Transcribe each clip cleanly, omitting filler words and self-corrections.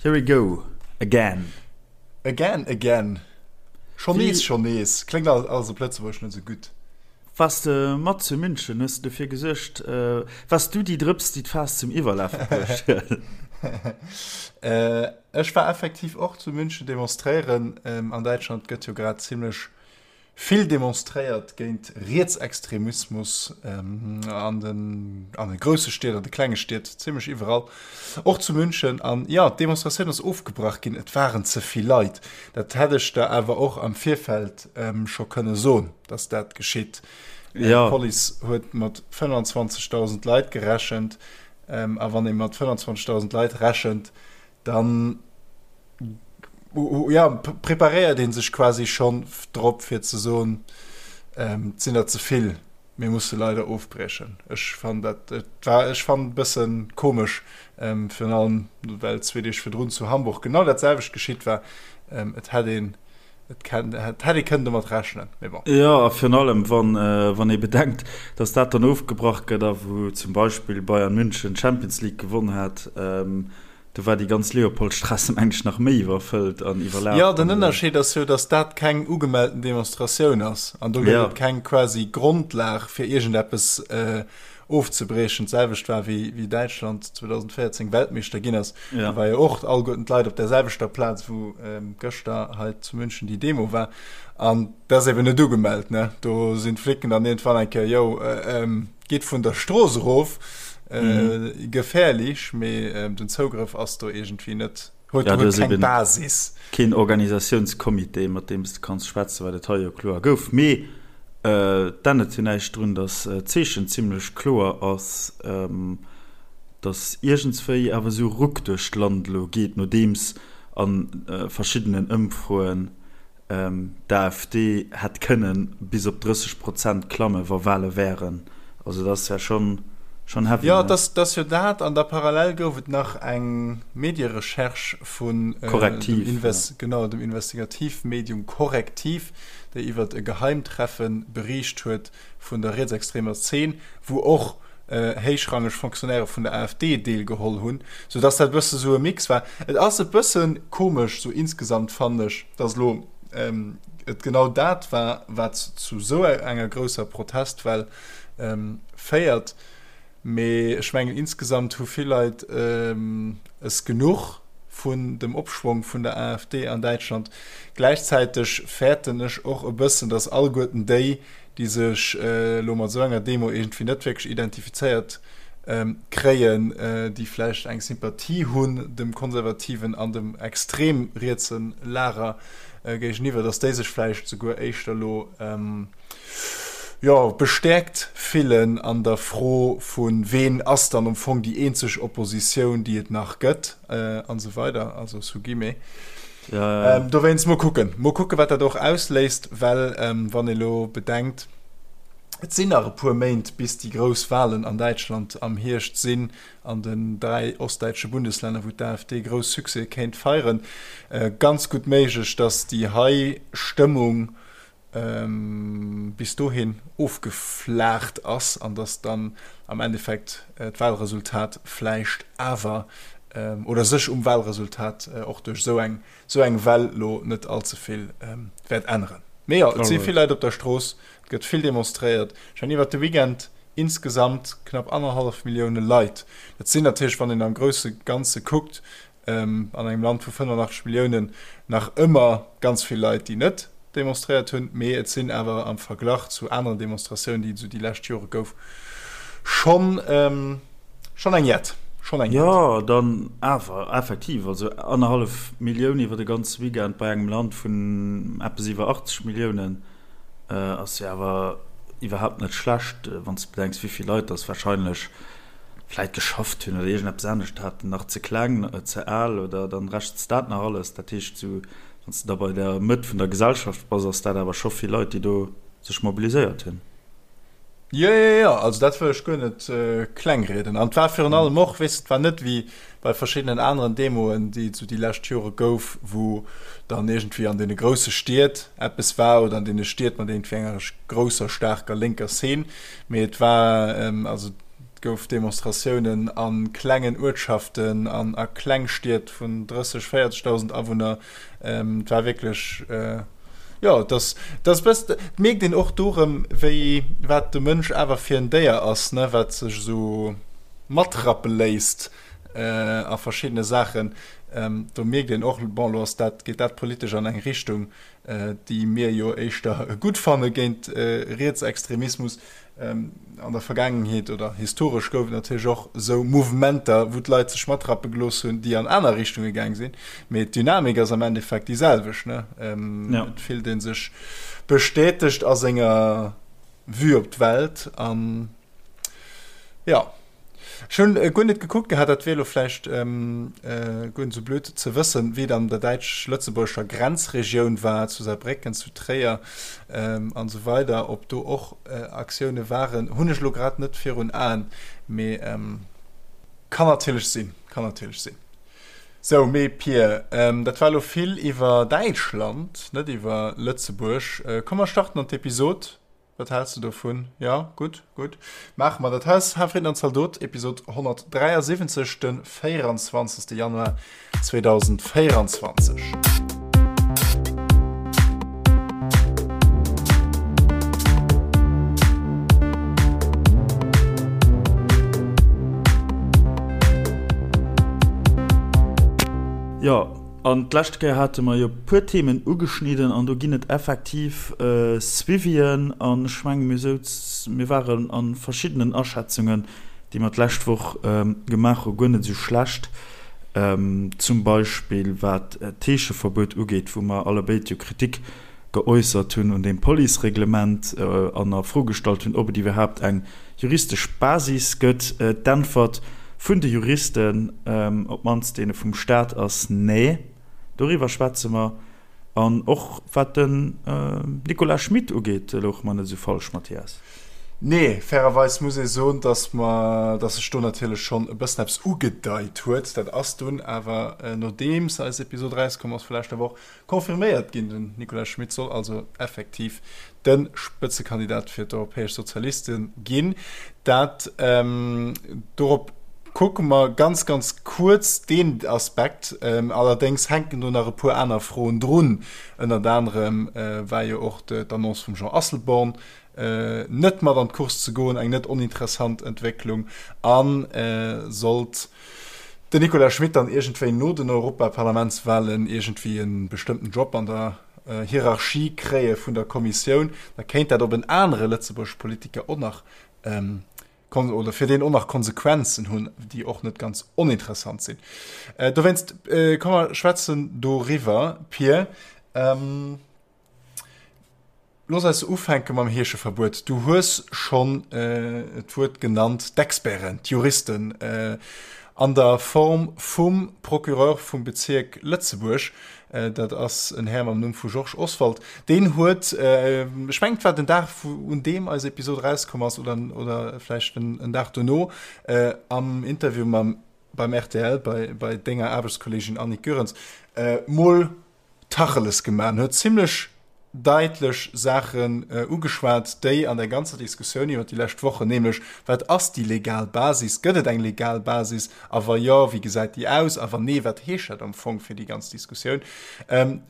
Here we go again. Again, again. Schonn nees, schonn nees. Kléngt alles op Lëtzebuergesch net esou gutt. Waars de mat zu München? Hues de dofir gesuergt? Waars du déi Drëps, déi d'Faass zum Iwwerlafe bruecht huet? Ech war effektiv och zu München demonstréieren. An Däitschland gëtt jo grad zimmlech Vill demonstréiert géint Rietsextremismus an den an de grousse Stied, an de klenge Stied, zimmlech iwwerall, och zu München. An jo, d'Demonstratioun ass ofgebrach ginn, et waren ze vill Leit. Dat hätt ech der awer och am Virfeld scho kënne soen, datt dat geschitt. D'Police huet mat 25.000 Leit gerechent. A wann ee mat 25.000 Leit rechent, dann ja, preparéiert ee sech quasi schonn drop fir ze soen, et sinn der ze vill, mir musse leider ofbriechen. Ech fannen dat, et war, ech fannen e bësse komesch, virun allem well zwee Deeg virdrun zu Hamburg genau dat selwecht geschitt war. Et hätt een, et kennt, et hätt ee kënnen domat rechnen, mee bon. Jo, a virun allem wann, wann ee bedenkt, datt dat dann ofgebrach gëtt a wou zum Beispill Bayern München d'Champions League gewonn hat, Do war déi ganz Leopoldstraße meng ech nach méi iwwerfëllt an iwwerlaf. Jo, den Ënnerscheed ass jo, datt dat keng ugemellten Demonstratioun ass an do gëtt et keng quasi Grondlag fir iergendeppes ofzebriechen. D'selwecht war wéi wéi Däitschland 2014 Weltmeeschter ginn ass. Do war jo och alleguerten d'Leit op där selwechter Plaz wou gëschter hei zu München déi Demo war. An dat ass eben net ugemellt, ne? Do sinn d'Flicken dann iergendwann eng Kéier, jo, Geet vun der Strooss erof, gefährlich, mee den Zougrëff ass do iergendwéi net, huet keng Basis. Keen Organisatiounscomité, mat deem s de kanns schwätzen, wat et hei jo kloer gouf. Mee et ännert jo näischt drun, datt d'Zeechen zimlech kloer ass, datt iergendswéi awer esou e Ruck duerch d'Land elo geet, nodeems a verschiddenen Ëmfroen D'AfD hätt kënnen bis op 30 Prozent klammen, wa Wale wären. Also dat ass ja schonn schonn heavy, Jo, ne? et ass jo dat. An da parallel gouf et nach eng Medierecherche vun dem Correctiv, ja. Genau, dem Investigativmedium Correctiv, déi iwwert e Geheimtreffe beriicht huet vun der rietsextremer Zeen, wou och héichrangeg Fonctionnairë vun der AfD deelgeholl hunn, sou dass dat e bësse sou e Mix war. Et ass e bësse komesch sou insgesamt, fannen ech, dass elo et genau dat war, wat zu sou enger grousser Protestwell féiert. Mee ech mengen, insgesamt hu vill Leit es genuch vun dem Opschwong vun der AfD an Däitschland. Gläichzäiteg fäerten ech och e bëssen, dass alleguerten déi, déi sech elo mat esou enger Demo iergendwéi net wierklech identifizéiert kréien, déi vläicht eng Sympathie hunn dem konservativen an dem extrem rietse Lager géigeniwwer, datt déi sech vläicht souguer éischter elo jo bestäerkt fillen an der Fro vu ween ass dann am Fong déi eenzeg Oppositioun, déi et nach gëtt an esou weider, also sous guillemets. Ja, ja. Dowéinst mol kucken, mol kucken, wat dat och ausléist, well wann ee lo bedenkt, et sinn nach e puer Méint, bis déi grouss Walen an Däitschland am Hierscht sinn, an den 3 ostdäitsche Bundeslänner, wou d'AfD grouss Succèse kéint feieren, ganz gutt méiglech, datt déi hei Stëmmung bis dohin ofgeflaacht ass an datt dann am Endeffekt d'Wahlresultat vläicht awer oder sech um Wahlresultat och duerch esou eng esou eng Well lo net all ze vill wäert änneren. Mee jo, et si vill Leit op der Strooss, et gëtt vill demonstréiert. Ech mengen iwwert de Weekend insgesamt knapp annerhallef Millioune Leit. Dat sinn natierlech, wann een am grousse Ganze kuckt, an engem Land vu 85 Milliounen nach ëmmer ganz vill Leit, déi net demonstréiert hunn, mee et sinn awer am Verglach zu aneren Demonstratiounen, déi et esou déi lescht Jore gouf, schonn schonn eng jett. Schonn eng jett. Jo, dann awer effektiv, also annerhallef Millioun iwwer de ganze Weekend bei engem Land vun eppes iwwer 80 Milliounen ass jo awer iwwerhaapt net schlecht, wann s de bedenks, wéi vill Leit dass warscheinlech vläit geschafft hunn oder iergendeppes anescht haten, nach ze kleng, ze al oder dann rechens dat nach alles. Dat heescht, sou wann s de da bei der Mëtt vun der Gesellschaft bass, ass dat awer scho vill Leit, déi do sech mobiliséiert hunn. Jo, jo, jo, also dat wëll ech guer net klengrieden. An et war virun allem och, weess de, et war net wéi bei verschiddenen aneren Demoen, déi et sou déi lescht Jore gouf, wou dann iergendwéi an deene grousse Stied eppes war oder an deene Stied mat iergendwéi enger grousser, staarker lénker Szene, mee et war, also. Et gouf Demonstratiounen a klengen Uertschaften an a Klengstied vun 30, 40.000 Awunner. Et war wierklech, jo, et ass, et ass e bëss, et mierkt een och do erëm, wéi, wat de Mënsch awer fir en Déier ass, ne, wat sech esou matrappe léisst a verschiddene Saachen. Do mierkt een och, bon, elo ass dat, geet dat politesch an eng Richtung, déi mir jo éischter gutt fanne géint Rietsextremismus. An der Vergaangenheet oder historesch gouf et natierlech och esou Mouvementer, wou d'Leit sech matrappe gelooss hunn, déi an aner Richtunge gaang sinn. Mee d'Dynamik ass am Endeffekt déi selwecht, ne? Et fillt ee sech bestätegt a senger Vue op d'Welt an jo. Ech hunn guer net gekuckt gehat, dat wier elo vläicht guer net esou blöd ze wëssen, wéi et an der däitsch-lëtzebuergescher Grenzregioun war, zu Saarbrécken, zu Tréier an esou weider, ob do och Aktioune waren, hunn ech elo grad net virun Aen, mee kann natierlech sinn, kann natierlech sinn. Sou, mee Pir, dat war elo vill iwwer Däitschland, net iwwer Lëtzebuerg. Komm mer starten an d'Episod. Wat häls de dovun? Jo, gutt, gutt. Maache mer dat. Hei ass Hafriden an Zaldot, Episod 173, de 24. Januar 2024. Jo, An d'lescht Kéier hate mer jo e puer Themen ugeschnidden an do ginn et effektiv Suivien. An ech menge mir souz, mir waren a verschiddenen Aschätzungen, déi mer d'lescht Woch gemaach hu guer net esou schlecht. Zum Beispill wat d'Heescheverbuet ugeet, wou mer allebéid jo Kritik geäussert hunn un deem Policereglement an a Fro gestallt hunn, ob et iwwerhaapt eng juristesch Basis gëtt. D'Äntwert vun de Juristen, op d'mannst deene vum Staat, ass Nee. Doriwwer schwätze mer. An och wat den Nicolas Schmit ugeet, louche mer net esou falsch, Mathias. Nee, fairerweis muss ee soen, datt mer, datt sech do natierlech schonn e bëssen eppes ugedeit huet. Dat ass dunn awer, nodeems eis Episod erauskomm ass vu leschter Woch, Confirméiert ginn. Den Nicolas Schmit soll also effektiv de Spëtzekandidat fir d'Europäesch Sozialiste ginn. Dat dorop kucke mer ganz, ganz kuerz deen Aspekt. Allerdéngs hänken do nach e puer aner Froen drun. Ënnert anerem war jo och d'Annonce vum Jean Asselborn, net mat an d'Course ze goen, eng net oninteressant Entwécklung a sollt den Nicolas Schmit dann iergendwéi no den Europaparlamentswahlen iergendwéi e bestëmmten Job an der Hierarchie kréie vun der Kommissioun, da kéint dat op en anere lëtzebuergesche Politiker och nach oder fir deen och nach Konsequenzen hunn, déi och net ganz oninteressant sinn. Dowéinst, komm mer schwätzen doriwwer, Pir. Looss eis ufänke mam Heescheverbuet. Du hues schonn d'Wuert genannt, d'Experten, d'Juristen an der Form vum Procureur vum Bezierk Lëtzebuerg, dat ass en Här mam Numm vu Georges Oswald, deen huet, ech mengen et war den Dag, un deem eis Episod erauskomm ass oder oder vläicht en Dag dono, am Interview mam beim rtl bei bei denger Aarbechtskolleegin Annick Goerens, mol Tacheles gemaach en huet zimlech daitlech Saachen ugeschwat, déi an der ganzer Diskussioun iwwer déi lescht Wochen, nämlech, Wat ass déi legal Basis? Gëtt et eng legal Basis? A wa jo, wéi gesäit déi aus? A wann nee, wat heescht dat am Fong fir déi ganz Diskussioun?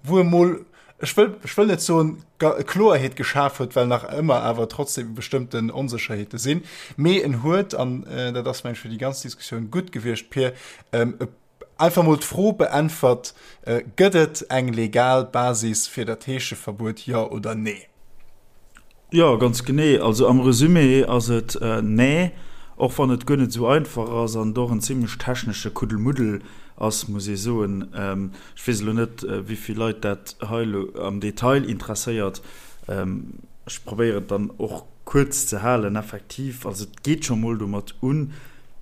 Wou e mol, ech wëll, ech wëll net soen, Kloerheet geschaf huet, well nach ëmmer awer trotzdem bestëmmten Onsécherheete sinn, mee en huet, an dat ass, meng ech, fir déi ganz Diskussioun gutt gewiescht, Pir, e Einfach mol d'Fro beäntwert, Gëtt et eng legal Basis fir dat Heescheverbuet, jo oder nee? Jo, ganz genee. Also am Resumé ass et nee, och wann et guer net esou einfach ass an et och en zimlech technesche Kuddelmuddel ass, muss ee soen. Ech weess elo net, wéi vill Leit dat hei elo am Detail interesséiert. Ech probéieren et dann och kuerz ze halen. Effektiv, also et geet scho mol domat un,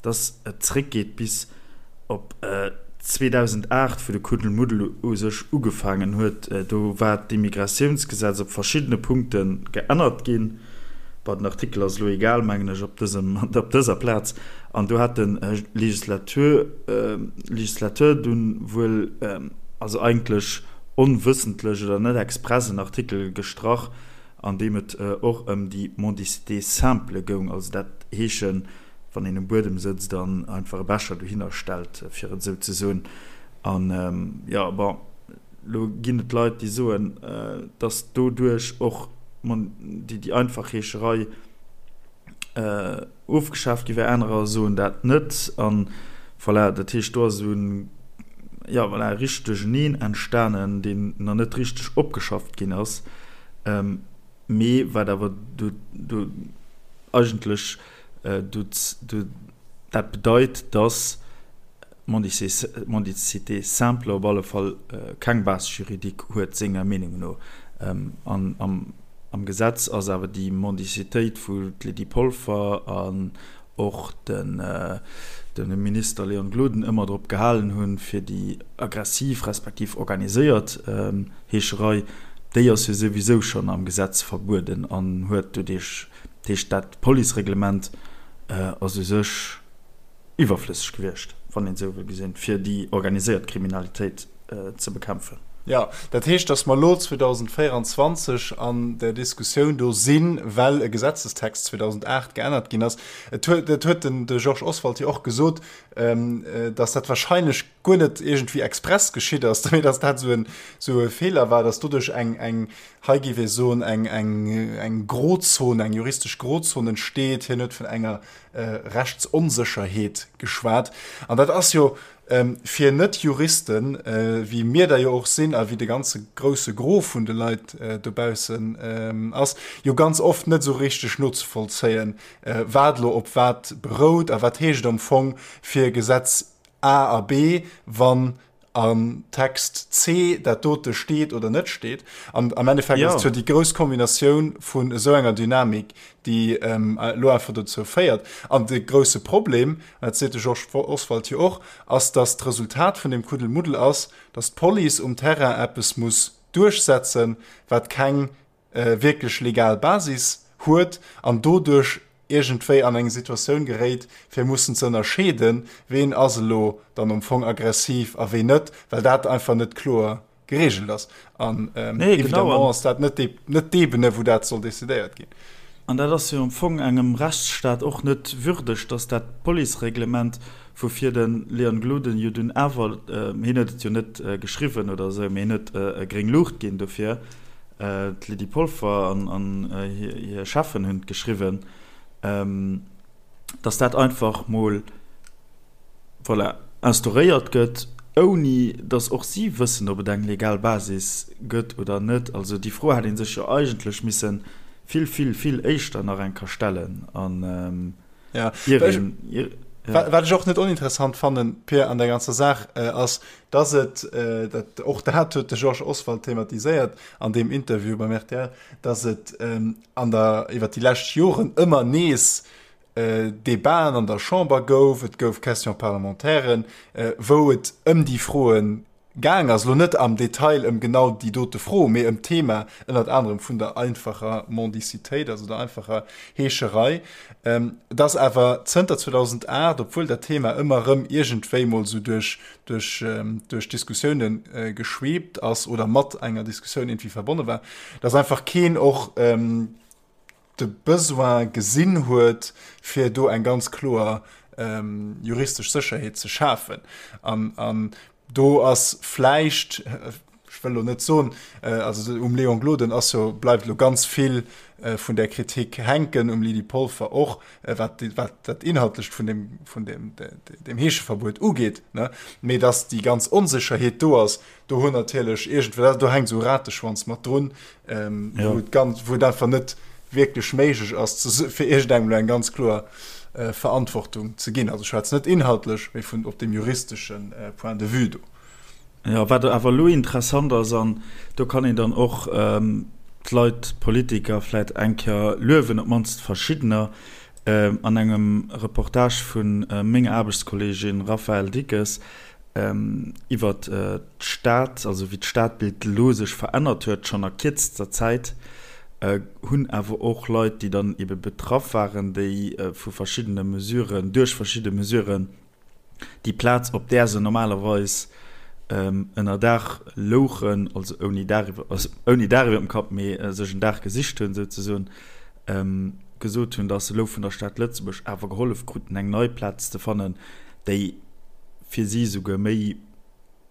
dass et zréckgeet bis op 2008, wou de Kuddelmuddel u sech ugefaangen huet. Do war d'Immigratiounsgesetz op verschiddene Punkte geännert ginn. Bon, den Artikel ass elo egal, mengen ech, op dësem, op dëser Plaz. An do hat de Legislateur, Legislateur dunn wuel, also eigentlech onwëssentlech oder net express en Artikel gestrach, an deem et och ëm déi Mendicité simple goung, also dat heeschen. Wann een um Buedem sëtzt an einfach e Becher dohinner stellt, fir et esou ze soen. An, jo, bon, elo ginn et Leit, déi soen, dass doduerch och déi einfach Heescherei ofgeschaaft gi wär. Anerer soen dat net. An voilà, dat heescht, do ass esou en, jo, voilà, e richtegt Duercheneen entstanen, deen nach net richteg opgeschafft ginn ass. Mee wat awer do, do eigentlech do, do dat bedeit, dass d'Mendicité simple op alle Fall keng Base juridique huet, senger Meenung no. An am, am Gesetz ass awer déi Mendicitéit, wou d'Lydie Polfer an och den de Minister Léon Gloden ëmmer drop gehalen hunn, fir déi aggressiv respektiv organiséiert Heescherei, déi ass jo souwisou schonn am Gesetz verbueden an huet doduerch, dat heescht dat Policereglement ass u sech iwwerflësseg gewiescht, wann een esou wëll gesinn, fir déi organiséiert Kriminalitéit ze bekämpfen. Jo, dat heescht, datt mer elo 2024 an där Diskussioun do sinn, well e Gesetzestext 2008 geännert ginn ass. Et huet, dat huet den de Georges Oswald jo och gesot, datt dat wahrscheinlech guer net iergendwéi express geschitt ass, mee datt dat esou en, esou e Feeler war, datt doduerch eng, eng, hei géif ee soen, eng, eng, eng Grozon, eng juristesch Grozon entsteet. Hien huet vun enger Rechtsonsécherheet geschwat. An dat ass jo Fir Net-Juristen, wéi mir der jo och sinn a wéi de ganze grousse Gros vun de Leit dobaussen ass, jo ganz oft net esou richteg nozevollzéien, wat elo op wat berout a wat heescht et am Fong fir Gesetz A a B, wann am Text C dat dote steet oder net steet. An am Endeffekt ass et jo déi grouss Kombinatioun vun esou enger Dynamik, déi elo einfach dozou féiert. An de grousse Problem, dat seet de Georges Oswald jo och, ass, datt d'Resultat vun deem Kuddelmuddel ass, datt d'Police um Terrain eppes muss duerchsetzen, wat keng wierklech legal Basis huet an doduerch iergendwéi an eng Situatioun geréit, fir mussen ze ënnerscheeden, ween ass elo dann am Fong aggressiv a ween net, well dat einfach net kloer geregelt ass. An nee, évidemment ass dat net net d'Ebene, wou dat soll decidéiert ginn. An dat ass jo am Fong engem Rechtsstaat och net würdeg, dass dat Policereglement, woufir de Leon Gloden jo dunn awer, hien huet et jo net geschriwwen oder esou, mee hien huet gréng Luucht ginn dofir, d'Lydie Polfer an hir Cheffen hunn et geschriwwen, dass dat einfach mol, voilà, instauréiert gëtt, ouni datt och si wëssen, ob et eng legal Basis gëtt oder net. Also déi Fro hätt ee sech jo eigentlech misse vill, vill, vill éischter nach eng Kéier stellen. An ja. ier een, ier, ja. Wat ech och net oninteressant fannen, Pir, an der ganzer Saach, ass, dass et, dat, och dat huet de Georges Oswald thematiséiert an deem Interview beim rtl, dass et an der, iwwer déi lescht Joren ëmmer nees Debaten an der Chamber gouf, et gouf Question-parlementairen, wou et ëm déi Froe gaang ass, elo net am Detail ëm genau déi dote Fro, mee ëm d'Thema ënnert anerem vun der einfacher Mendicitéit, also der einfacher Heescherei, dass awer zënter 2008, obwuel dat Thema ëmmer erëm iergendwéi mol esou duerch, duerch, duerch Diskussioune geschweebt ass oder mat enger Diskussioun iergendwéi verbonne war, dass einfach keen och, de Besoin gesinn huet, fir do eng ganz kloer juristesch Sécherheet ze schafen. An do ass vläicht, ech wëll elo net soen, also um Léon Gloden ass jo, bleift elo ganz vill vun där Kritik hänken, um Lydie Polfer och, wat dat Inhaltlecht vun deem, vun deem, deem Heescheverbuet ugeet, ne? Mee datt déi ganz Onsécherheet do ass, Do hunn natierlech iergendwéi, do hänkt esou e Rateschwanz mat drun, ähm, ja. wou et ganz, wou et einfach net wierklech méiglech ass, ze, fir iergendengem elo eng ganz kloer äh, Verantwortung ze ginn. Also ech schwätzen net inhaltlech, mee vun op dem juristeschen äh, Point de vue do. Ja, wat awer elo interessant ass, an do kann een dann och ähm, d'Leit, d'Politiker vläit eng Kéier luewen, op d'mannst verschiddener, ähm, an engem Reportage vun äh, menger Aarbechtskolleegin Raphaëlle Dickes, iwwert d'Stad, also wéi d'Stadbild elo sech verännert huet, schonn a kierzester Zäit, hunn awer och Leit, déi dann ebe betraff waren, déi vu verschiddene Mesuren, duerch verschidde Mesuren déi Plaz, op där se normalerweis ënner Daach louchen, also ouni Daach iwwer, also ouni Daach iwwer dem Kapp, mee sech en Daach gesicht hunn souzesoen. gesot hunn, datt se elo vun der Stad Lëtzebuerg awer gehollef kruten, eng nei Plaz ze fannen, déi fir si esouguer méi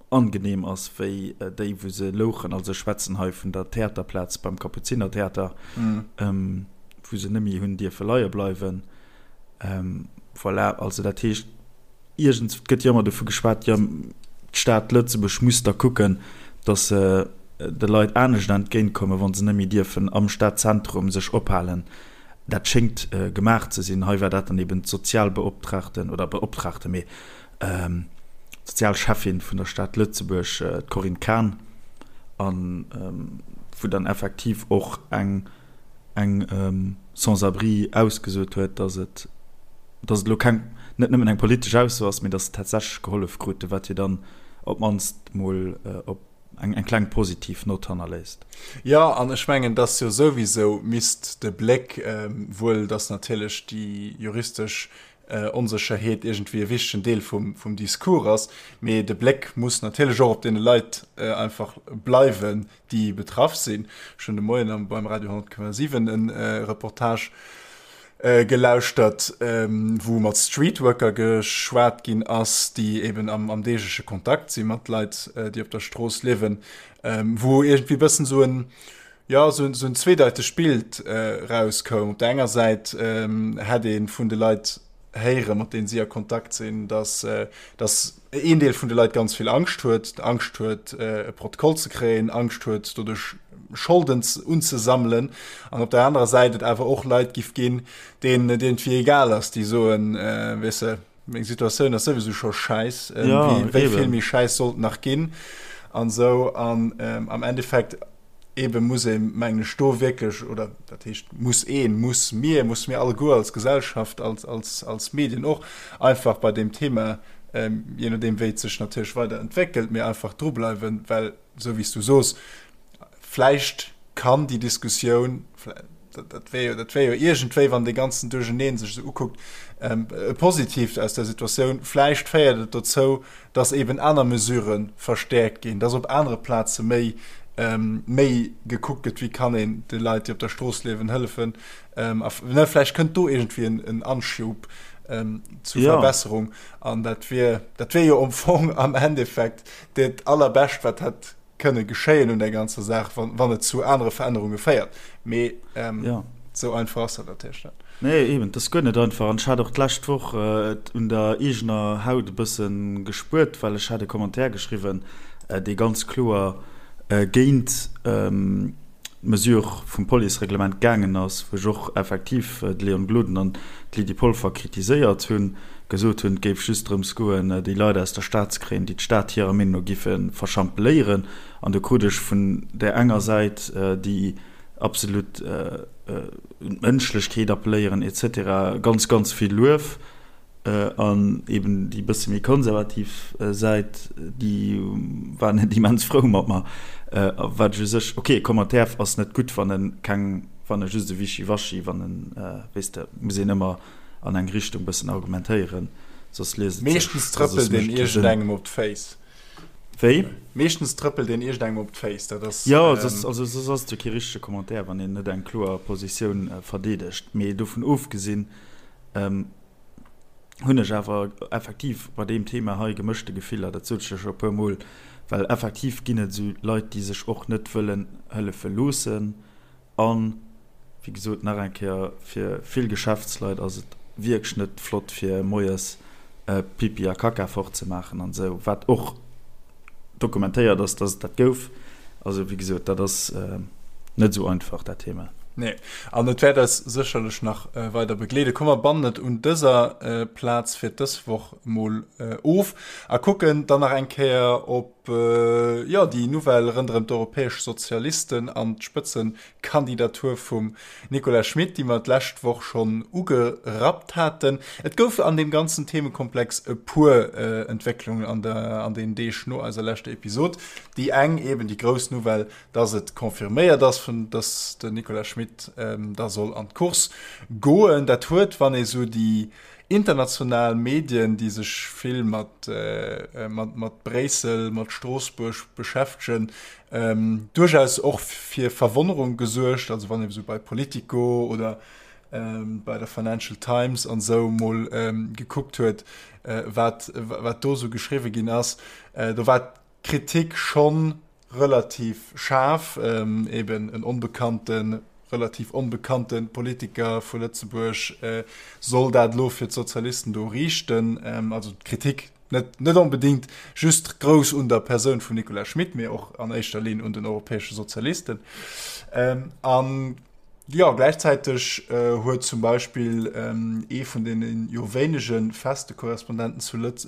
angenehm ass wéi déi, wou se louchen. Also ech schwätzen hei vun der Theaterplaz beim Kapuzinertheater, wou se net méi hunn dierfe leie bleiwen. Voilà, also dat heescht, iergends, et gëtt jo ëmmer dovu geschwat, jo d'Stad Lëtzebuerg muss da kucken, datt se de Leit anescht entgéintkommen, wa se net méi dierfen am Stadzentrum sech ophalen. Dat schéngt gemaach ze sinn. Hei war dat dann eben d'Sozialbeoptraagten oder Beoptraagte, mee d'Sozialschäffin vun der Stad Lëtzebuerg, d'Corinne Cahen, a wou dann effektiv och eng eng Sans-abri ausgesot huet, datt et datt et elo keng net nëmmen eng politesch Ausso ass, mee datt se tatsächlech gehollef krute, wat jo dann op d'mannst mol op eng eng kleng positiv Nott hannerléisst. Jo, an ech mengen, datt jo souwisou misst de Bléck, wuel datt natierlech déi juristesch Onsécherheet iergendwéi e wichtegen Deel vum Discours ass, mee de Bléck muss natierlech och op deene Leit einfach bleiwen, déi betraff sinn. Ech hunn de Moien beim Radio 10,7 e Reportage gelauschtert, wou mat Streetworker geschwat ginn ass, déi eben am deegleche Kontakt si mat Leit, déi op der Strooss liewen, wou iergendwéi e bëssen esou en, jo, esou en zweedeitegt Bild erauskoum. Op der enger Säit hätt ee vun de Leit héieren, mat deenen si a Kontakt sinn, dass, dass een Deel vun de Leit ganz vill Angscht huet, Angscht huet, e Protokoll ze kréien, Angscht huet, doduerch Scholden unzesammelen, an op der anerer Säit et awer och Leit giff ginn, deenen et iergendwéi egal ass, déi soen, weess de, meng Situatioun ass souwisou scho schäiss, wéi vill méi schäiss soll et nach ginn an esou. An am Endeffekt Ebe muss ee mengen ech do wierklech, oder dat heescht muss een, muss mir, muss mir alleguer als Gesellschaft, als, als, als Medien och einfach bei deem Thema, je nodeem wéi et sech natierlech weider entwéckelt, mee einfach drubleiwen, well esou wéi s du soos, vläicht kann déi Diskussioun, dat wär jo, dat wär jo iergendwéi, wann dee ganzen Duercheneen sech esou ukuckt, e Positiivt aus der Situatioun, vläicht féiert et dozou, dass eben aner Mesurë verstäerkt ginn, dass op anere Plaze méi, méi gekuckt gëtt, wéi kann een de Leit, déi op der Strooss liewen, hëllefen. A vläicht kënnt do iergendwéi en Anschub zu Verbesserung. An dat wier, dat wier jo am Fong am Endeffekt dat Allerbescht, wat hätt kënne geschéien un der ganzer Saach, wann et zu anere Verännerunge féiert. Mee esou einfach ass dat natierlech net. Nee, eben, et ass guer net einfach. An ech hat och d'lescht Woch et un der eegener Haut e bësse gespuert, well ech hat e Commentaire geschriwwen, dee ganz kloer géint d'Mesure vum Policereglement gaangen ass, wou ech och effektiv de Léon Gloden an d'Lydie Polfer kritiséiert hunn, gesot hunn, et géif just drëms goen, déi Leit aus der Stad ze kréien, déi d'Stad hirer Meenung no giffe verschampeléieren. An do krut ech vun där enger Säit, déi absolut un d'Mënschlechkeet appelléieren et cetera, ganz, ganz vill Luef. An eben déi bësse méi konservativ Säit, déi war net immens frou mat mer. Wat ech u sech, ok, e Commentaire ass net gutt, wann e keng, wann e just e Wischiwaschi, wann en, weess de, muss een ëmmer an eng Richtung bëssen argumentéieren, soss liest et sech. Meeschtens trëppelt een iergendengem op d'Féiss. Wéi? Meeschtens trëppelt een iergendengem op d'Féiss, dat ass. Jo, soss, also soss ass et jo kee richtege Commentaire, wann een net eng kloer Positioun verdeedegt. Mee dovun ofgesinn, hunn ech awer effektiv bei deem Thema hei gemëschte Gefiller, dat sot ech jo scho e puer Mol, well effektiv ginn et esou Leit, déi sech och net wëllen hëllefe loossen. An, wéi gesot, nach eng Kéier, fir vill Geschäftsleit ass et wierklech net flott, fir moies Pipi a Kaka fortzemaachen an esou, wat och dokumentéiert ass, dass et dat gouf. Also, wéi gesot, dat ass net esou einfach, dat Thema. Nee, an et wäert eis sécherlech nach weider begleeden. Komm, mer bannen et un dëser Plaz fir dës Woch mol of a kucken dann nach eng Kéier op, jo, déi Nouvelle rënderëm d'europäesch Sozialisten an d'Spëtzekandidatur vum Nicolas Schmit, déi mer d'lescht Woch schonn ugerappt haten. Et gouf an deem ganzen Themekomplex e puer Entwécklungen an der, an den Deeg no eiser leschter Episod. Déi eng eben déi grouss Nouvelle, dass et confirméiert ass, vun dass den Nicolas Schmit da soll an d'Course goen. Dat huet, wann ee sou déi international Medien, déi sech vill mat, mat, mat Bréissel, mat Stroossbuerg beschäftegen, duerchaus och fir Verwonnerung gesuergt. Also wann ee sou bei Politico oder. bei der Financial Times an esou mol gekuckt huet, wat, wat do esou geschriwwe ginn ass, do war d'Kritik schonn relativ schaarf, eben en onbekannten, relativ onbekannte Politiker vu Lëtzebuerg soll dat elo fir d'Sozialisten do riichten. Also d'Kritik net, net onbedéngt just grouss un der Persoun vum Nicolas Schmit, mee och an éischter Linn un den europäesche Sozialisten. An jo, gläichzäiteg huet zum Beispill ee vun deene jo wéinege feste Korrespondenten zu Lëtz,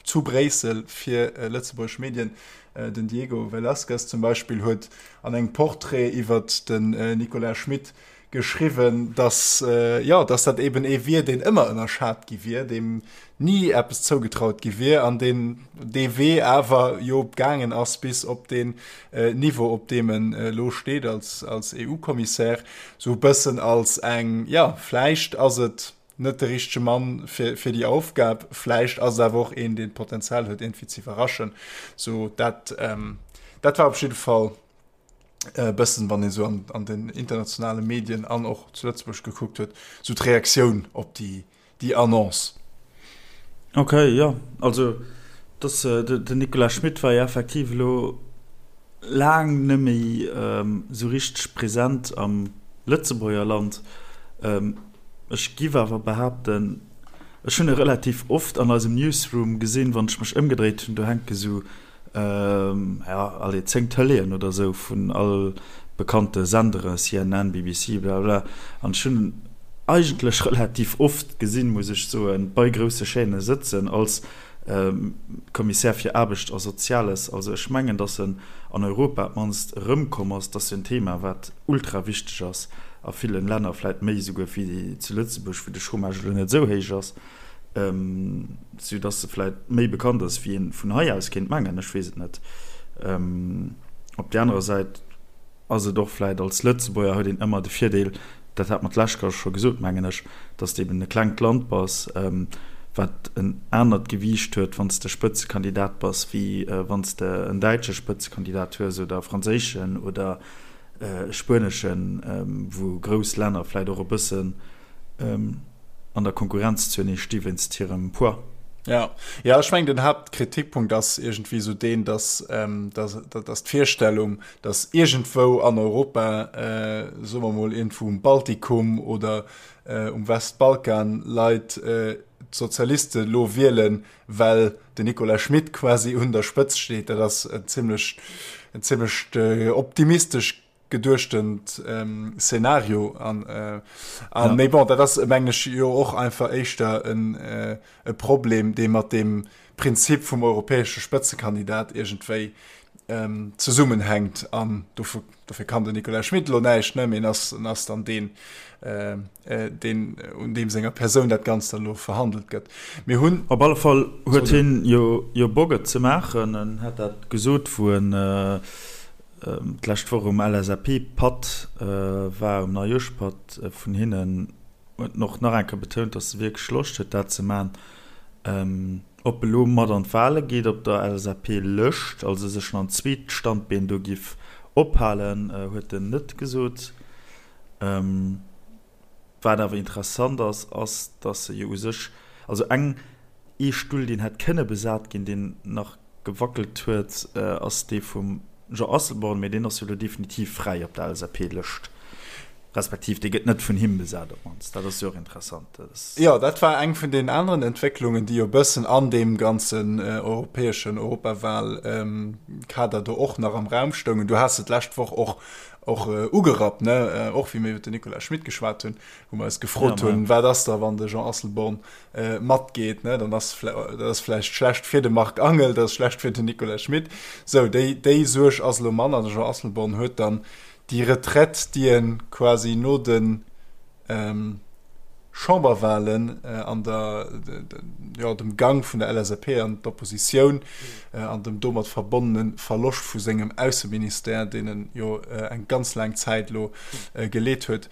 zu Bréissel fir lëtzebuergesch Medien, den Diego Velázquez zum Beispill, huet an engem Portrait iwwer den Nicolas Schmit geschriwwen, dass, jo, dass dat eben ee wier, deen ëmmer ënnerschat gi wier, deem ni eppes zougetraut gi wier an deen dee Wee awer jo gaangen ass bis op deen Niveau, op deem en elo steet als, als EU-Kommissär, sou e bëssen als eng, jo, vläicht ass et net de richtege Mann fir, fir déi Aufgab, vläicht ass et awer och een, deen d'Potenzial huet, iergendwéi ze iwwerraschen. Sou dat, dat war op jidde Fall e bëssen, wann ee sou an, an den internationale Medien an och zu Lëtzebuerg gekuckt huet, sou d'Reaktioun op déi, déi Annonce. Ok, jo, also dass den Nicolas Schmit war jo effektiv elo laang net méi esou richteg present am Lëtzebuerger Land. Ech giff awer behaapten, ech hunn e relativ oft an eisem Newsroom gesinn, wann ech mech ëmgedréit hunn, do hänke sou ja, allez, 10 Tëleeën oder sou vun all bekannte Senderen, CNN, BBC, blablabla, an ech hunn en eigentlech relativ oft gesinn, muss ech soen, bei grousse Chaîne sëtzen als Kommissär fir Aarbecht a Soziales. Also ech mengen, datt en an Europa op d'mannst erëmkomm ass. Dat ass jo en Thema, wat ultra wichteg ass a villen Länner, vläit méi esouguer wéi zu Lëtzebuerg, wou de Chômage elo net esou héich ass. Sou dass se vläit méi bekannt ass wéi een vun hei aus kéint mengen, ech weess et net. Op där anerer Säit ass et och vläit als Lëtzebuerger huet een ëmmer de Virdeel, dat hat mer d'lescht Kéier scho gesot mengen ech, dass de eben e klengt Land bass, wat en anert Gewiicht huet wann s de Spëtzekandidat bass wéi wann s de en däitsche Spëtzekandidat hues oder e franséischen oder e spueneschen, wou grouss Länner vläit och e bëssen an der Konkurrenz zuenee sti wéinst hirem Poids. Ja, ja, ech mengen den Haaptkritikpunkt ass iergendwéi esou deen, dass, ähm, dass, dass d'Virstellung, dass iergendwou an Europa, äh, soe mer mol iergendwou um Baltikum oder äh, um Westbalkan Leit äh, d'Sozialiste lo wielen, well den Nicolas Schmit quasi un der Spëtzt steet, dat ass en zimmlech, en zimmlecht äh, optimistesch geduechtent ähm, Szenario an äh, an ja. méi bon dat ass mengen ech jo och einfach éischter en äh, e Problem dee mat dem Prinzip vum europäesche Spëtzekandidat iergendwéi ähm, zesummenhänkt an dofir, dofir kann den Nicolas Schmit lo näischt ne mee en ass en ass dann deen äh, äh, deen un deem senger Persoun dat Ganzt dann lo verhandelt gëtt. Mir hunn Op alle Fall huet hien jo jo Bock et ze maachen, en hat dat gesot wou en äh, D'lescht Woch um LSAP-Patt war, um Neijoerschpatt vun hinnen, huet en och nach eng Kéier betount, datt e wierklech Loscht huet, dat ze maachen. Ob e lo mat an d'Wale geet op der LSAP-Lëscht, also sech nach en zweet Standbeen do giff ophalen, huet en net gesot. Wat awer interessant ass, ass, datt se jo u sech, also eng, ee Stull, deen hätt kënne besat ginn, deen nach gewackelt huet, ass dee vum Jean Asselborn, mee deen ass jo elo definitiv fräi op der LSAP-Lëscht, respektiv dee gëtt net vun him besat op d'mannst. Dat ass jo och interessant. Dat ass. Jo, dat war eng vun deenen aneren Entwécklungen, déi jo e bëssen an deem ganzen europäeschen Europawal-Kader do och nach am Raum stoungen. Du has se d'lescht Woch och och ugerappt, ne, och wéi mir iwwer den Nicolas Schmit geschwat hunn, wou mer eis gefrot hunn, wat ass da wann de Jean Asselborn matgeet, ne, dann ass dat ass vläicht schlecht fir de Marc Angel, dat ass schlecht fir den Nicolas Schmit. Sou, déi déi Suerg ass elo manner. De Jean Asselborn huet dann déi Retraite, déi e quasi no de Chamberwahlen an der, jo, dem Gang vun der LSAP an d'Oppositioun an dem domat verbonnene Verloscht vu sengem Ausseministère, deen en jo eng ganz laang Zäit elo geleet huet,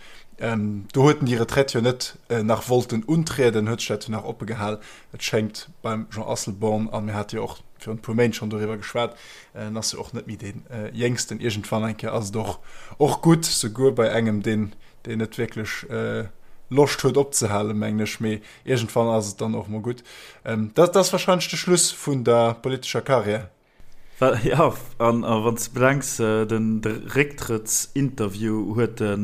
do huet en déi Retraite jo net nach wollten untrieden, huet sech dat jo nach oppe gehal. Et schéngt beim Jean Asselborn, a mir hate jo och virun e puer Méint schonn doriwwer geschwat, en ass jo och net méi dee Jéngsten, iergendwann eng Kéier ass et och och gutt, souguer bei engem, deen. deen net wierklech Loscht huet opzehalen, mengen ech, mee iergendwann ass et dann och mol gutt. Dat ass wahrscheinlech de Schluss vun der politescher Karriär. Jo, an wann s de bedenks, den Récktrëttsinterview huet e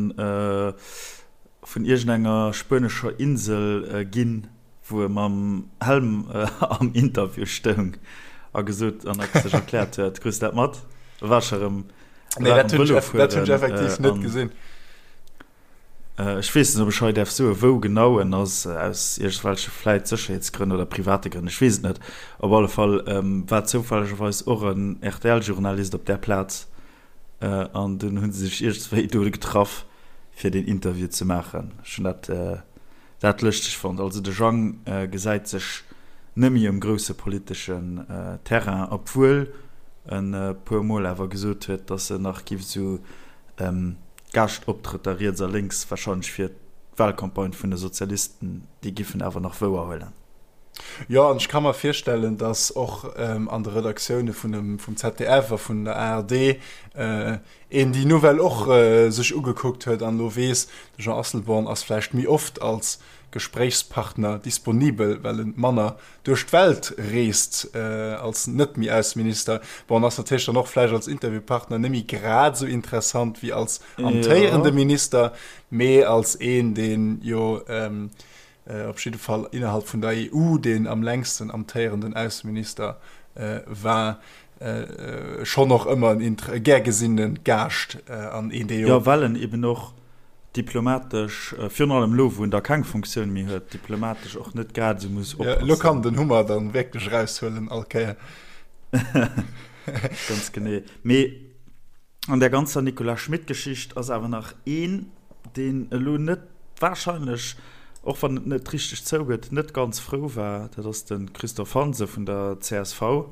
vun iergendenger spuenescher Insel ginn, wou e mam Helm am Interview stoung a gesot an sech erkläert huet. Krus de dat mat? War scho rëm. Nee, dat hunn ech effektiv net gesinn. Ech weess net, ob ech hei däerf soen, wou genau en ass, aus iergendwelche vläit Sécherheetsgrënn oder private Grënn, ech weess et net. Op alle Fall war zoufällegerweis och en RTL-Journalist op där Plaz an dunn hu se sech iergendswéi do getraff, fir deen Interview ze maachen. Ech hunn dat dat lëschteg fonnt. Also de Jang gesäit sech net méi um grousse politeschen Terrain, obwuel en e puer Mol awer gesot huet, datt en nach giff esou Gaaschtoptrëtter riets a lénks, warscheinlech fir d'Wahlcampagne vun de Sozialisten, déi giffen awer nach wouer huelen. Jo, an ech ka mer virstellen, datt och an de Redaktioune vum ZDF a vun der ARD een déi Nouvelle och sech ugekuckt huet an elo weess, de Jean Asselborn ass vläicht méi oft als Gespréichspartner disponibel, well en manner duerch d'Welt reest als net méi Ausseminister. Bon, en ass natierlech dann och vläicht als Interviewpartner net méi grad esou interessant wéi als amtéierende Minister, mee als een, deen jo op jidde Fall innerhalb vun der EU deen am längsten amtéierenden Ausseminister war, schonn och ëmmer en gär gesinne Gaascht an een, dee jo. Jo, well en eben och diplomatesch, virun allem elo wou en da keng Funktioun méi huet, diplomatesch och net grad esou muss oppassen. Elo kann den Hummer dann wierklech eraushuelen all Kéier. Ganz genee. Mee an där ganzer Nicolas Schmit-Geschicht ass awer nach een, deen elo net wahrscheinlech, och wann et net richteg zougëtt, net ganz frou war, dat ass de Christophe Hansen vun der csv.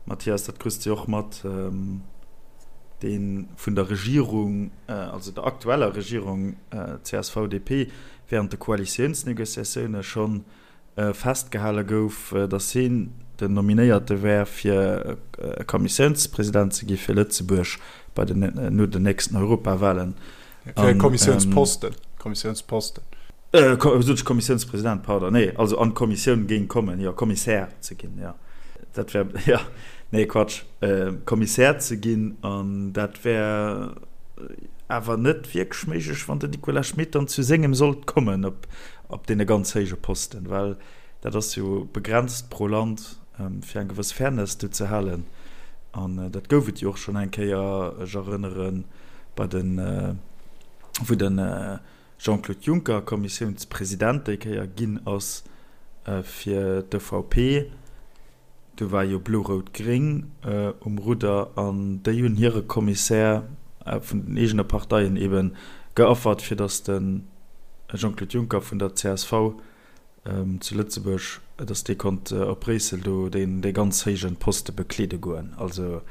Mathias, dat krus de jo och mat, dee vun der Regierung, also der aktueller Regierung CSV-DP, während de Koalitiounsnegociatioune schonn festgehale gouf, datt hien den Nominéierte wär, fir Kommissiounspresident ze gi fir Lëtzebuerg bei den, no den nächsten Europawahlen. Fir e Kommissiounsposten, Kommissiounsposten. Sot ech Kommissiounspresident, pardon, nee, also an d'Kommissioun géing kommen, jo, Kommissär ze ginn, jo, dat wär, jo, nee, Quatsch, Kommissär ze ginn, an dat wär awer net wierklech méiglech, wann den Nicolas Schmit dann zu sengem sollt kommen op, op deene ganz héije Posten, well dat ass jo begrenzt pro Land, fir eng gewëss Fairness do ze halen, an dat gouf et jo och schonn eng Kéier, ech erënneren, bei den, wou den Jean-Claude Juncker Kommissiounspresident déi Kéier ginn ass fir d'EVP. Do war jo Blo-Rout-Gréng um Rudder an déi hunn hire Kommissär vun den eegene Parteien ebe geaffert, fir datt de Jean-Claude Juncker vun der csv zu Lëtzebuerg, datt dee konnt op Bréissel do dee ganz héije Poste bekleede goen. Also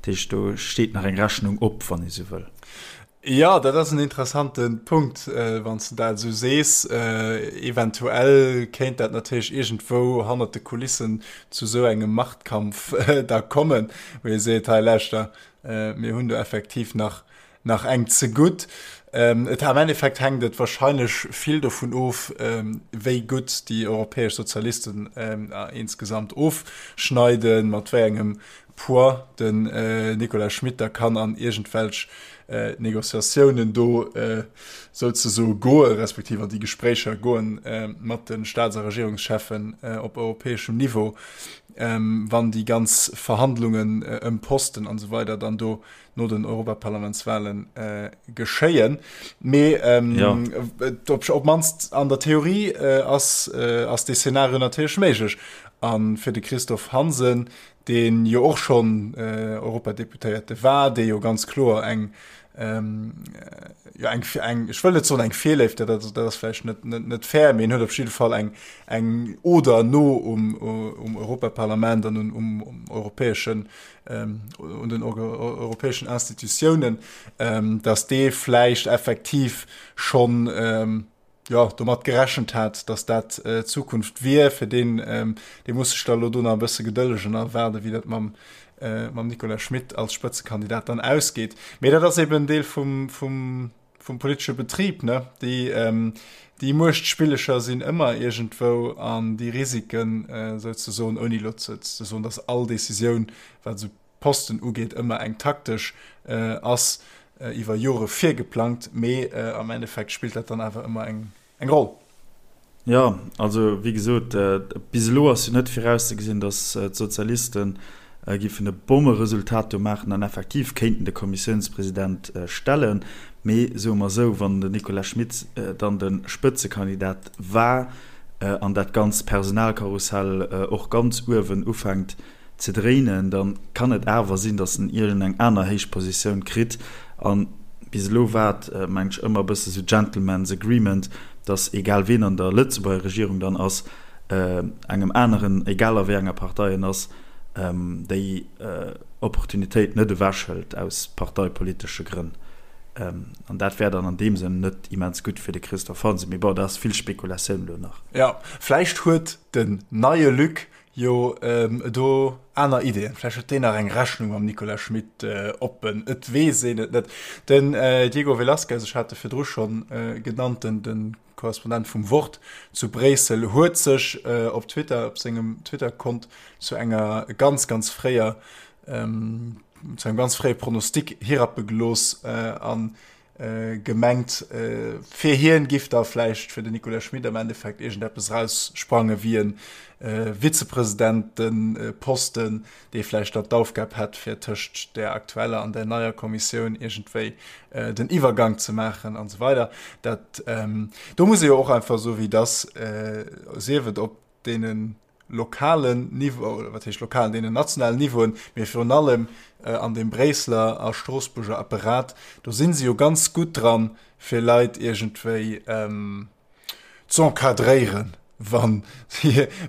dat heescht, do steet nach eng Rechnung op, wann ee sou wëll. Jo, dat ass en interessante Punkt, wann s de dat esou sees. Eventuell kéint dat natierlech iergendwou hannert de Kulissen zu esou engem Machtkampf da kommen, wou ee seet, hei lauschter, mir hunn do effektiv nach, nach eng zegutt. Et am Endeffekt hänkt et wahrscheinlech vill dovun of, wéi gutt déi europäesch Sozialisten insgesamt ofschneiden, mat wéi engem Poids den Nicolas Schmit da kann an iergendwelch Negociatiounen do souzesoe goe respektiv an déi Gespréicher goen mat de Staats a Regierungscheffen op europäeschem Niveau, wann déi ganz Verhandlungen ëm Posten an esou weider dann do no den Europaparlamentswahlen geschéien. Mee op d'mannst an der Theorie ass dee Szenario natierlech méiglech. A fir de Christophe Hansen, dee jo och schonn Europadeputéierte war, dee jo ganz kloer eng, jo eng, eng, ech wëll net soen eng Virléift, dat, dat ass vläicht net, net, net fair, mee en huet op jidde Fall eng, eng Oder no um, um Europaparlament an um, um europäeschen, un den europäeschen Institutiounen, datt dee vläicht effektiv schonn, jo, domat gerechent hat, datt dat d'Zukunft wier. Fir deen, dee muss sech da elo do nach e bësse gedëllegen a waarden, wéi dat mam, mam Nicolas Schmit als Spëtzekandidat dann ausgeet. Mee dat ass eben en Deel vum, vum, vum politesche Betrib, ne? Déi, déi Muechtspillecher sinn ëmmer iergendwou an déi Risiken souzesoen, ouni elo ze soen, datt all Decisioun, wat esou Posten ugeet, ëmmer eng taktesch ass, iwwer Jore virgeplangt, mee am Endeffekt spillt dat dann awer ëmmer eng eng Roll. Jo, also wéi gesot, bis elo ass jo net virauszegesinn, datt d'Sozialiste giffen e Bommeresultat do maachen an effektiv kéinten de Kommissiounspresident stellen. Mee soe mer esou, wann den Nicolas Schmit dann de Spëtzekandidat war an dat ganzt Personalkarussell och ganz uewen ufänkt ze dréinen, da kann et awer sinn, datt en iergend eng aner héich Positioun kritt. A bis elo war et, mengen ech, ëmmer e bësse sou Gentleman's Agreement, datt egal ween an der Lëtzebuerger Regierung dann ass, engem aneren, egal a wéi enger Partei en ass, déi Opportunitéit net ewechhëlt aus parteipolitesche Grënn. An dat wär dann an deem Sënn net immens gutt fir de Christophe Hansen. Mee bon, dat ass vill Spekulatioun elo nach. Jo, vläicht huet den neie Luc Jo, do aner Ideeën. Vläicht huet deen nach eng Rechnung mam Nicolas Schmit oppen. Et weess een et net. Den Diego Velazquez, ech hat e virdru schonn genannt, de Korrespondent vum Wort zu Bréissel, huet sech op Twitter, op sengem Twitter-Kont zu enger ganz, ganz fréier, zu engem ganz fréie Pronostic hirappe gelooss an gemengt, fir hien giff da vläicht fir den Nicolas Schmit am Endeffekt iergendeppes eraussprange wéi e Vizepresidenteposten, dee vläicht dann d'Aufgab hätt, fir tëscht där aktueller an där neier Kommissioun iergendwéi den Iwwergank ze maachen an esou weider. Dat, do muss ee jo och einfach soen, wéi et ass, sief et op deenen lokalen Niveau, oder wat heescht lokalen, deenen nationalen Niveauen, mee virun allem an deem Bréisseler a Stroossbuerger Apparat, do si se jo ganz gutt dran, fir Leit iergendwéi z'encadréieren, wann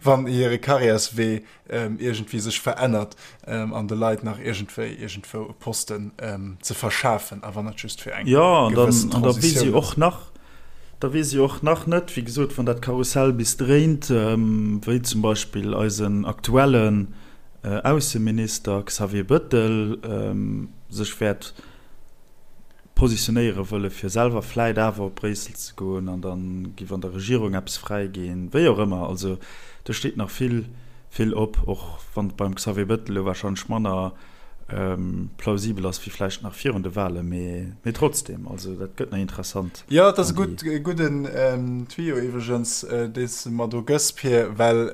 wann hire Karriärswee iergendwéi sech verännert an de Leit nach iergendwéi iergendwou e Posten ze verschafen, a wann et just fir eng gewëssen Transitioun ass. Da weess ee jo och nach net, wéi gesot, wann dat Karussell bis dréint, wéi zum Beispill eisen aktuellen Ausseminister Xavier Bëttel sech wäert positionéiere wëlle fir selwer vläit awer op Bréissel ze goen an da giff an der Regierung eppes fräi ginn, wéi och ëmmer. Also do steet nach vill, vill op, och wann et beim Xavier Bëttel elo warscheinlech manner plausibel ass wéi vläicht nach virun de Wahlen, mee trotzdem, also dat gëtt nach interessant. Jo, et ass e gutt, e gudden Tuyau iwwregens, dee s de mer do gëss, Pir, well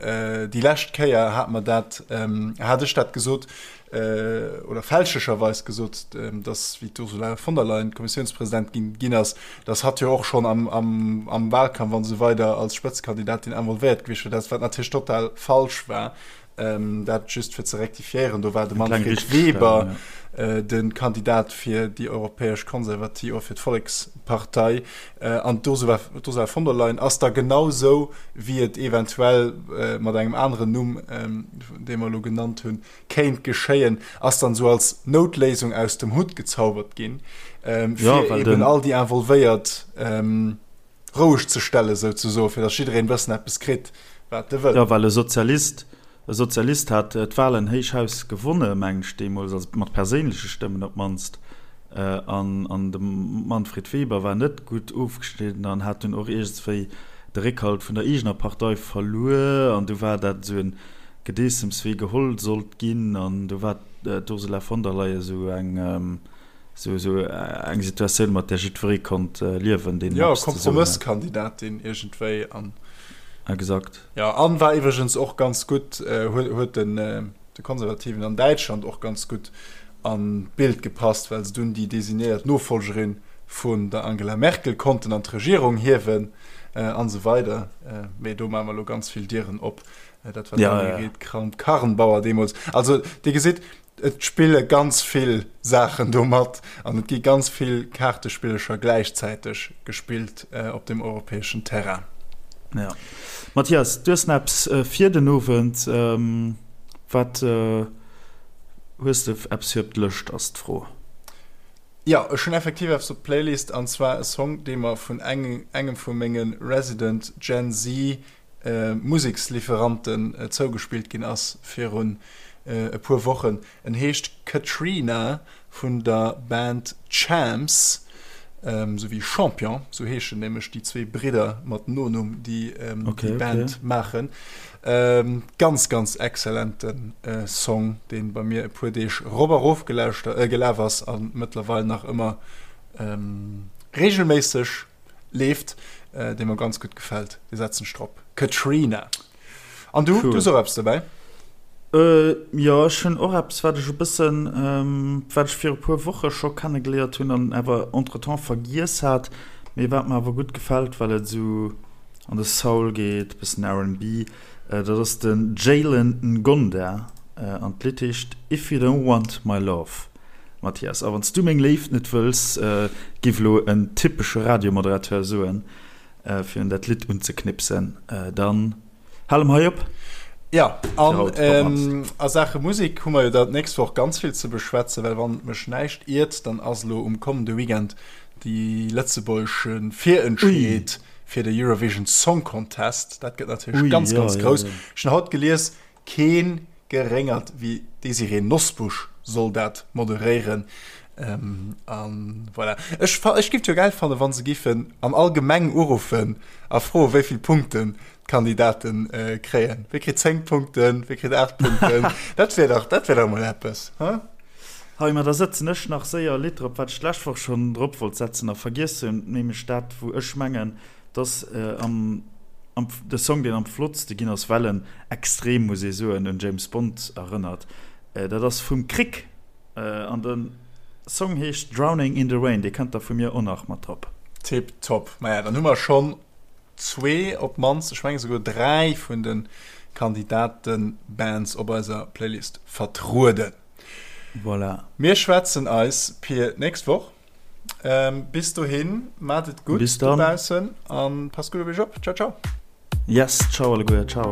déi lescht Kéier hat mer dat, hat ech dat gesot, oder fälschlecherweis gesot, datt, wéi d'Ursula von der Leyen Kommissiounspresidentin ginn ass, datt hatt jo och schonn am, am, am Wahlkampf an esou weider als Spëtzekandidatin involvéiert gewiescht wier, dat wat natierlech total falsch war. Ähm, dat just fir ze rektifiéieren, do war de Manfred Weber ja. äh, den Kandidat fir déi europäesch Konservativ oder fir d'Vollekspartei äh, an d'Ursula von der Leyen ass da genau sou wéi et eventuell äh, mat engem aneren Numm, ähm, dee mer elo genannt hunn, kéint geschéien, ass dann sou als Noutléisung aus dem Hutt gezaubert ginn, ähm, fir ja, eben all déi involvéiert ähm, roueg ze stellen, souzesoen, fir datt jiddereen e bëssen eppes kritt, wat e wëll. Jo, well e Sozialist, e Sozialist hat d'Wahlen héich Haus gewonne, mengen ech deemools, also mat perséinleche Stëmmen op d'mannst, an, an de Manfred Weber war net gutt ofgeschnidden an hat dunn och iergendswéi de Réckhalt vun der eegener Partei verluer, an du war dat esou e Gedeessems, wee geholl sollt ginn, an du war d'Ursula von der Leyen esou eng, Sou sou eng Situatioun, mat där jiddweree konnt liewen, deen Jo, eppes ze soen hat. Kompromësskandidatin iergendwéi an. Exakt. Jo, an war iwwregens och ganz gutt, huet huet den de Konservativen an Däitschland och ganz gutt an d'Bild gepasst, well se dunn déi designéiert Nofollgerin vun der Angela Merkel konnten an d'Regierung hiewen an esou weider. Mee do maache mer elo ganz vill Dieren op. Dat war d'Annegret Kramp-Karrenbauer deemools. Also Dir gesitt, Et spille ganz vill Saachen do mat an et gi ganz vill Kaartespillecher gläichzäiteg gespillt op dem europäeschen Terrain. Ja. Mathias, du hues nach eppes fir den Owend. Wat hues de eppes fir op d'Lëscht, ass d'Fro. Jo, ech hunn effektiv eppes op d'Playlist an zwar e Song, dee mer vun engem vu menge Resident Gen Z Museksliferanten zougespillt ginn ass virun e puer Wochen. En heescht Katrina vun der Band Champs. Sou wéi Champion, sou heeschen nämlech déi zwee Bridder mat Nonumm, déi déi Band maachen. Ganz, ganz exzellente Song, dee bei mir e puer Deeg rop a rof gelaf ass a mëttlerweil nach ëmmer reegelméisseg leeft, dee mer ganz gutt gefält. Dee setzen ech drop. Katrina. An du, du hues och eppes dobäi? Jo, ech hunn och eppes, wat ech e bëssen, wat ech viru puer Woche scho kennegeléiert hunn an awer entretemps vergiess hat, mee wat mer awer gutt gefält, well et esou an de Soul geet, e bëssen R&B. Dat ass de Jalen Ngonda an d'Lidd heescht If You Don't Want My Love. Mathias, a wann s du meng Léift net wëlls, giff elo en typesche Radiomoderateur soen, Fir un dat Lidd unzeknipsen. Dann hale mer hei op. Jo, an a Saache Musek hu mer jo da d'nächst Woch ganz vill ze beschwätzen, well wann mech näischt iert, dann ass elo um kommende Weekend déi lëtzebuergesch Virentscheed fir de Eurovision Song Contest. Dat gëtt natierlech ganz, ganz grouss. Ech hunn haut gelies, Keen geréngert wéi d'Désirée Nosbusch soll dat moderéieren. An voilà. Ech ech giff et jo gäil fannen, wann se giffen an all Gemeng uruffen a froen, wéi vill Punkten d'Kandidaten kréien. Wie kritt 10 Punkten, wie kritt 8 Punkten? Dat wär dach, dat wär dach emol eppes, he? Hei, ma da sëtzen ech nach séier e Lidd drop, wat ech d'lescht Woch schonn drop wollt setzen a vergiess hunn, nämlech dat, wou ech mengen, Dass am am de Song deen am flottste ginn ass, well en extrem, muss ee soen, un James Bond erënnert. Dat ass vum Crick an de Song heescht Drowning in the Rain. Dee kënnt da vu mir och nach mat drop. Tip top. Maja, dann hu mer schonn zwee, op d'mannst, ech menge souguer dräi vun de Kandidaten-Bands op eiser Playlist vertrueden. Voilà. Mir schwätzen eis, Pir, d'nächst Woch. Bis dohin, maat et gutt dobaussen an passt gutt op iech op. Ciao, ciao. Yes, ciao alleguer, ciao.